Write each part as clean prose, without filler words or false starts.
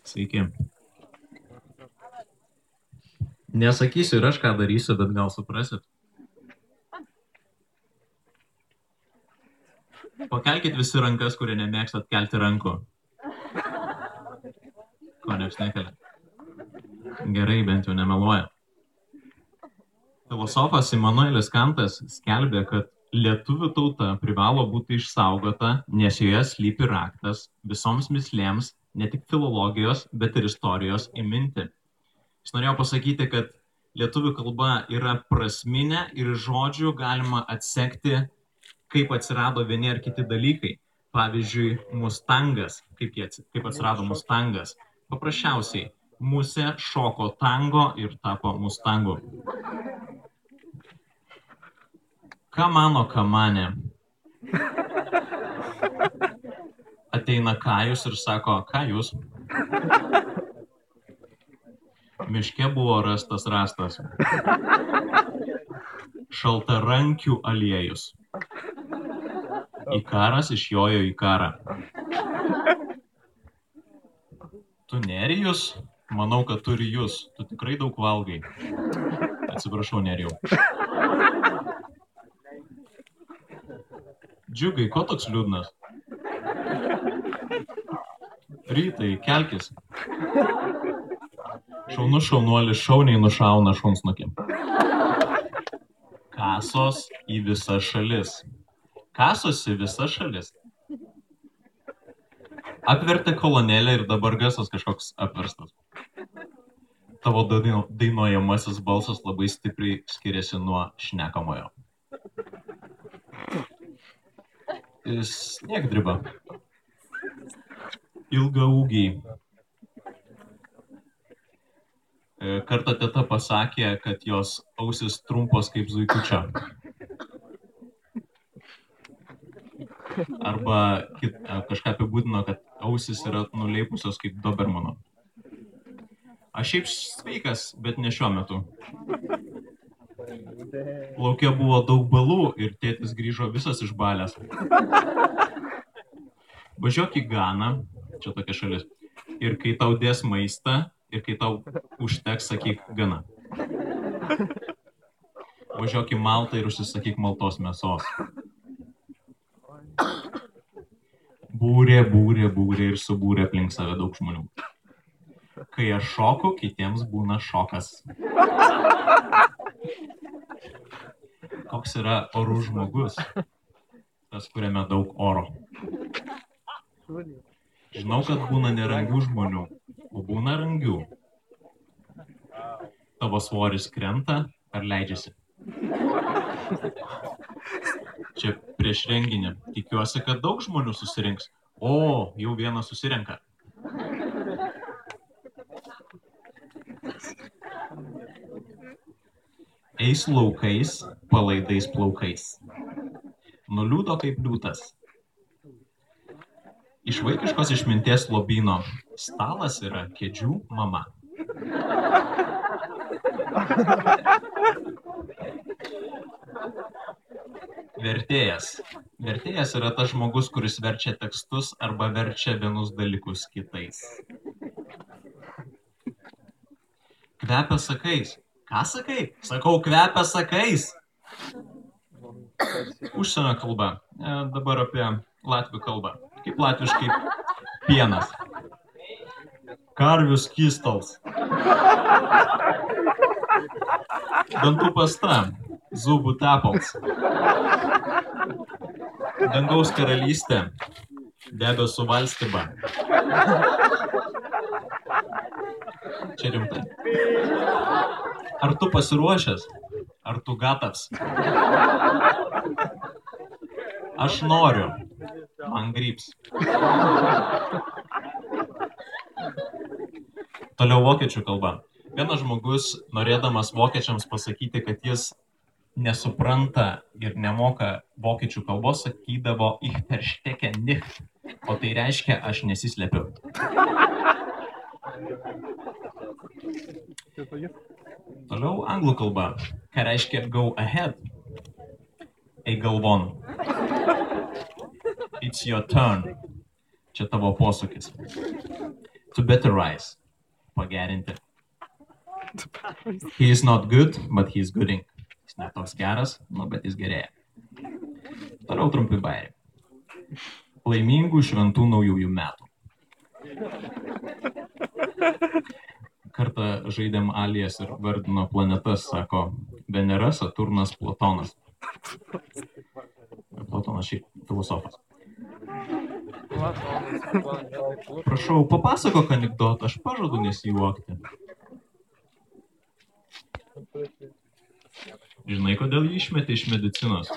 Sveiki. Nesakysiu ir aš ką darysiu, bet gal suprasit. Pakelkit visi rankas, kurie nemėgstat kelti rankų. Ko nieks nekelia. Gerai, bent jau nemeluoja. Filosofas Immanuelis Kantas skelbė, kad lietuvių tauta privalo būti išsaugota, nes joje slypi raktas visoms mislėms, ne tik filologijos, bet ir istorijos įminti. Jis norėjo pasakyti, kad lietuvių kalba yra prasminė ir žodžių galima atsekti, kaip atsirado vieni ar kiti dalykai. Pavyzdžiui, mustangas. Kaip atsirado mustangas? Paprasčiausiai, musė šoko tango ir tapo mustangu. Ką mano kamanė? Ateina Kajus ir sako, ką jūs? Miške buvo rastas rastas. Šaltarankių aliejus. Ikaras išjojo į karą. Tu Nerijus? Manau, kad turi jūs. Tu tikrai daug valgai. Atsiprašau, Nerijau. Džiugai, ko toks liūdnas? Rytai, kelkis. Šaunus šaunuolis šauniai nušauna šunsnukį. Kasos į visas šalis. Kasosi visas šalis. Apvertė kolonėlę ir dabar garsas kažkoks apverstas. Tavo dainuojamasis balsas labai stipriai skiriasi nuo šnekamojo. Sniegdriba. Ilgaūgiai. Kartą teta pasakė, kad jos ausis trumpos kaip zuikučio. Arba kažką apibūdino, kad ausis yra nuleipusios kaip dobermano. Aš šiaip sveikas, bet ne šiuo metu. Lauke buvo daug balų ir tėtis grįžo visas išbalęs. Važiuok į Ganą, čia tokia šalis, ir kai tau dės maistą, ir kai tau užteks, sakyk gana. Važiuok į Maltą ir užsisakyk maltos mėsos. Būrė ir subūrė aplink save daug žmonių. Kai aš šoku, kitiems būna šokas. Koks yra orų žmogus? Tas, kuriame daug oro. Žinau, kad būna nerangių žmonių, o būna rangių. Tavo svoris krenta ar leidžiasi? Čia prieš renginį. Tikiuosi, kad daug žmonių susirinks. O, jau vienas susirenka. Eis laukais, palaidais plaukais. Nuliūdo kaip liūtas. Iš vaikiškos išminties lobyno. Stalas yra kėdžių mama. Vertėjas. Vertėjas yra tas žmogus, kuris verčia tekstus arba verčia vienus dalykus kitais. Kvepia sakais. Ką sakai? Sakau, kvepia sakais. Užsienio kalba. Dabar apie latvių kalbą. Kaip latviškai pienas. Karvių skystals. Dantų pasta. Zubų tepals. Dangaus karalystė. Debesų valstyba. Čia rimtai. Ar tu pasiruošęs? Ar tu gatavs? Aš noriu. Man gryps. Toliau vokiečių kalba. Vienas žmogus, norėdamas vokiečiams pasakyti, kad jis nesupranta ir nemoka vokiečių kalbos, sakydavo ich verstecke nicht. O tai reiškia, aš nesislepiu. Toliau anglų kalba. Ką reiškia go ahead? Eik galvon. It's your turn. Čia tavo posūkis. To betterize. Pagerinti. He is not good, but he is gooding. Jis ne toks geras, bet jis gerėja. Toliau trumpi bairiai. Laimingų šventų naujųjų metų. Kartą žaidėm Alijas ir vardino planetas, sako Venera, Saturnas, Platonas. Platonas šiaip filosofas. Prašau, papasakok anekdotą, aš pažadu nesijuokti. Žinai, kodėl jį išmetė iš medicinos?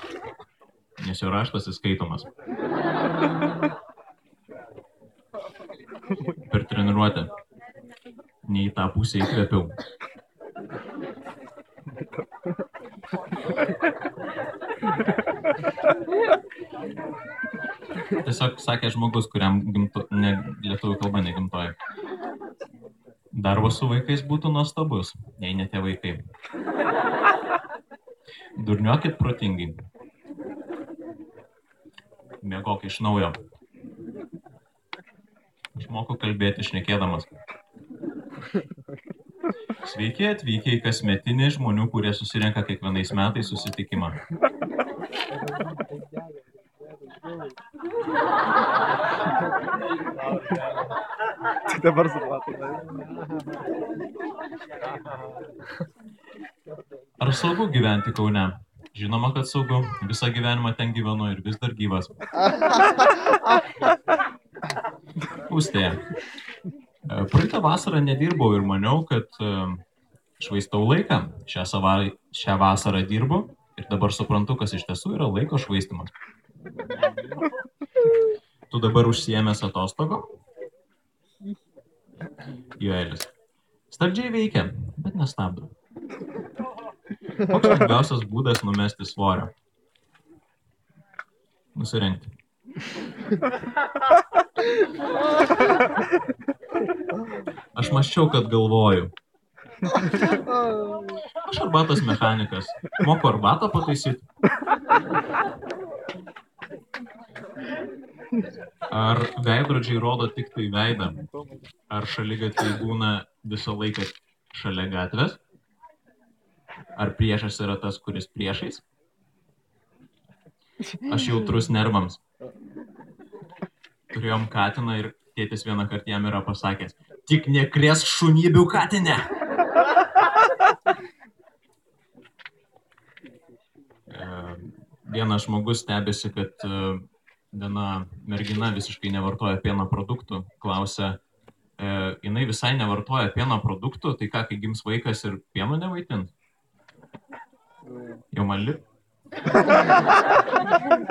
Nes jo raštas įskaitomas. Per treniruotę. Ne į tą pusę įkvėpiau. Tiesiog sakė žmogus, kuriam lietuvių kalba negimtoji. Darbas su vaikais būtų nuostabus, jei ne tie vaikai. Durniokit protingai. Miegok iš naujo. Išmokau kalbėti šnekėdamas. Sveiki atvykę į kasmetinį žmonių, kurie susirenka kiekvienais metais susitikimą. Tik dabar supratai. Ar saugu gyventi Kaune? Žinoma, kad saugu. Visą gyvenimą ten gyvenu ir vis dar gyvas. Pūstėje. Praeitą vasarą nedirbau ir maniau, kad švaistau laiką. Šią vasarą dirbu ir dabar suprantu, kas iš tiesų yra laiko švaistimas. Tu dabar užsiėmęs atostogo? Joelis. Stabdžiai veikia, bet nestabdo. Koks lengviausias būdas numesti svorio? Nusirengti. Aš mąsčiau, kad galvoju. Aš arbatos mechanikas. Moku arbatą pataisyti. Ar veidrodžiai rodo tik tai veidą? Ar šaligatviai būna visą laiką šalia gatvės? Ar priešas yra tas, kuris priešais? Aš jautrus nervams. Turėjom katiną ir tėtis vieną kartą jam yra pasakęs: tik nekrėsk šunybių katinę! Vienas žmogus stebėsi, kad viena mergina visiškai nevartoja pieno produktų. Klausia, jinai visai nevartoja pieno produktų, tai ką, kai gims vaikas ir pieno nevaitins? Jau man